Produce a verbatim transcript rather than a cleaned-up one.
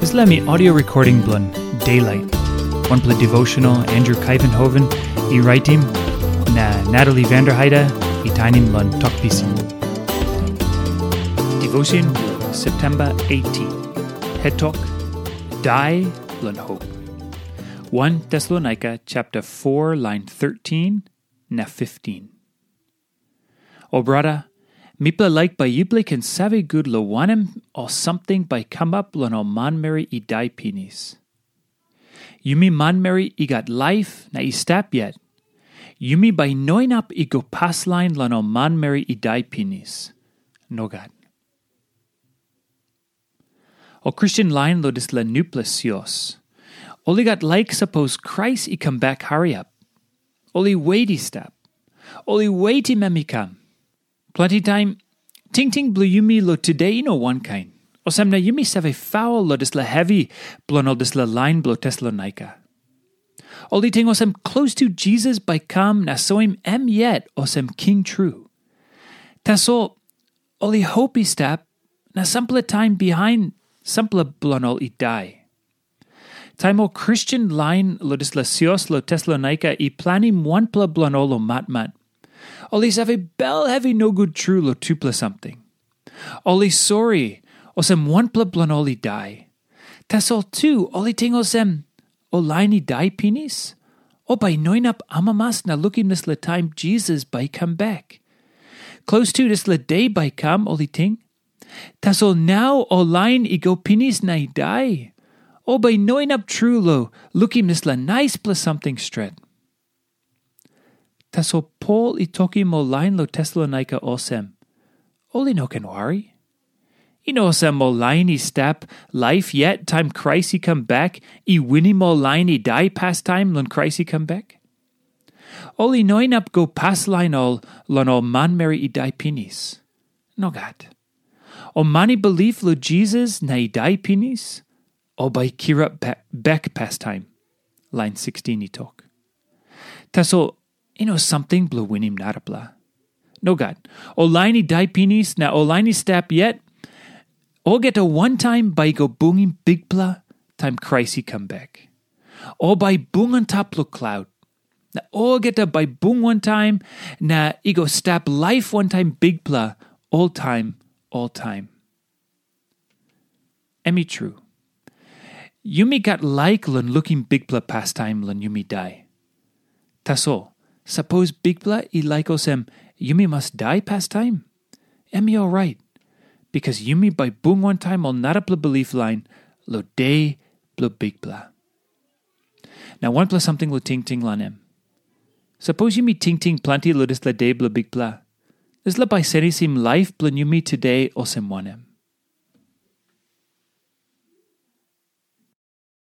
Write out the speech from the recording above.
Dispela mi audio recording bilong Daylight, wanpela devotional Andrew Kaivenhoven i raitim, na Natalie Vanderheide i tainim long Tok Pisin. Devotion, September eighteen. Het tok, Dai long Hope. One Thessalonica chapter four, line thirteen na fifteen. O brata, mipela laik bai yupela i ken save gut long wanem ol samting bai i kamap long ol manmeri i dai pinis. Yumi manmeri i gat laip na i stap yet, yumi bai i no inap i go paslain long ol manmeri i dai pinis. Nogat. Ol Kristen lain long dispela nupela sios, ol i gat laik sapos Krais i kam bek hariap. Ol i wet i stap. Ol i wetim em i kam. Planti taim, tingting bilong yumi long tude i no wankain. Olsem na yumi save faul long dispela hevi bilong ol dispela lain bilong Tesalonaika. Ol i ting olsem klostu Jisas bai i kam na soim em yet olsem king tru. Tasol ol i hop i stap, na sampela taim bihain sampela bilong ol i dai. Taim ol Kristen lain long dispela sios long Tesalonaika i planim wanpela bilong ol long matmat, ol i save bel hevi nogut tru long tupela samting. Ol i sori, olsem wanpela bilong ol i dai. Tasol tu ol i ting olsem, ol lain i dai pinis, ol bai i no inap amamas na lukim dispela taim Jisas bai i kam bek. Klostu dispela de bai i kam, ol i ting. Tasol nau ol lain i go pinis na i dai, ol bai i no inap tru long lukim dispela naispela samting stret. Tasol Pol i tokim ol lain long Tesalonaika olsem, ol i no ken wari. I no olsem ol lain i stap laip yet taim Krais i kam bek i winim ol lain i dai pastaim long Krais i kam bek. Ol i no inap go paslain ol long ol manmeri i dai pinis. Nogat. Ol man i bilip long Jisas na i dai pinis, ol bai i kirap bek pastaim, lain sixteen i tok. Tasol i no samting bilong winim narapela. Nogat, ol lain i dai pinis na ol lain i stap yet, olgeta wantaim bai i go bungim Bikpela taim Krais i kam bek. Ol bai i bung antap long klaut, na olgeta bai i bung wantaim na i go stap laip wantaim Bikpela oltaim oltaim. Em i tru. Yumi gat laik long lukim Bikpela pastaim long yumi dai. Tasol, sapos Bikpela i laik olsem yumi mas dai pastaim, em i orait, bikas yumi bai bung wantaim ol narapela bilip lain long de bilong Bikpela. Na wanpela samting long tingting long em. Sapos yumi tingting planti long dispela de bilong Bikpela, dispela bai senisim laip bilong yumi tude olsem wanem?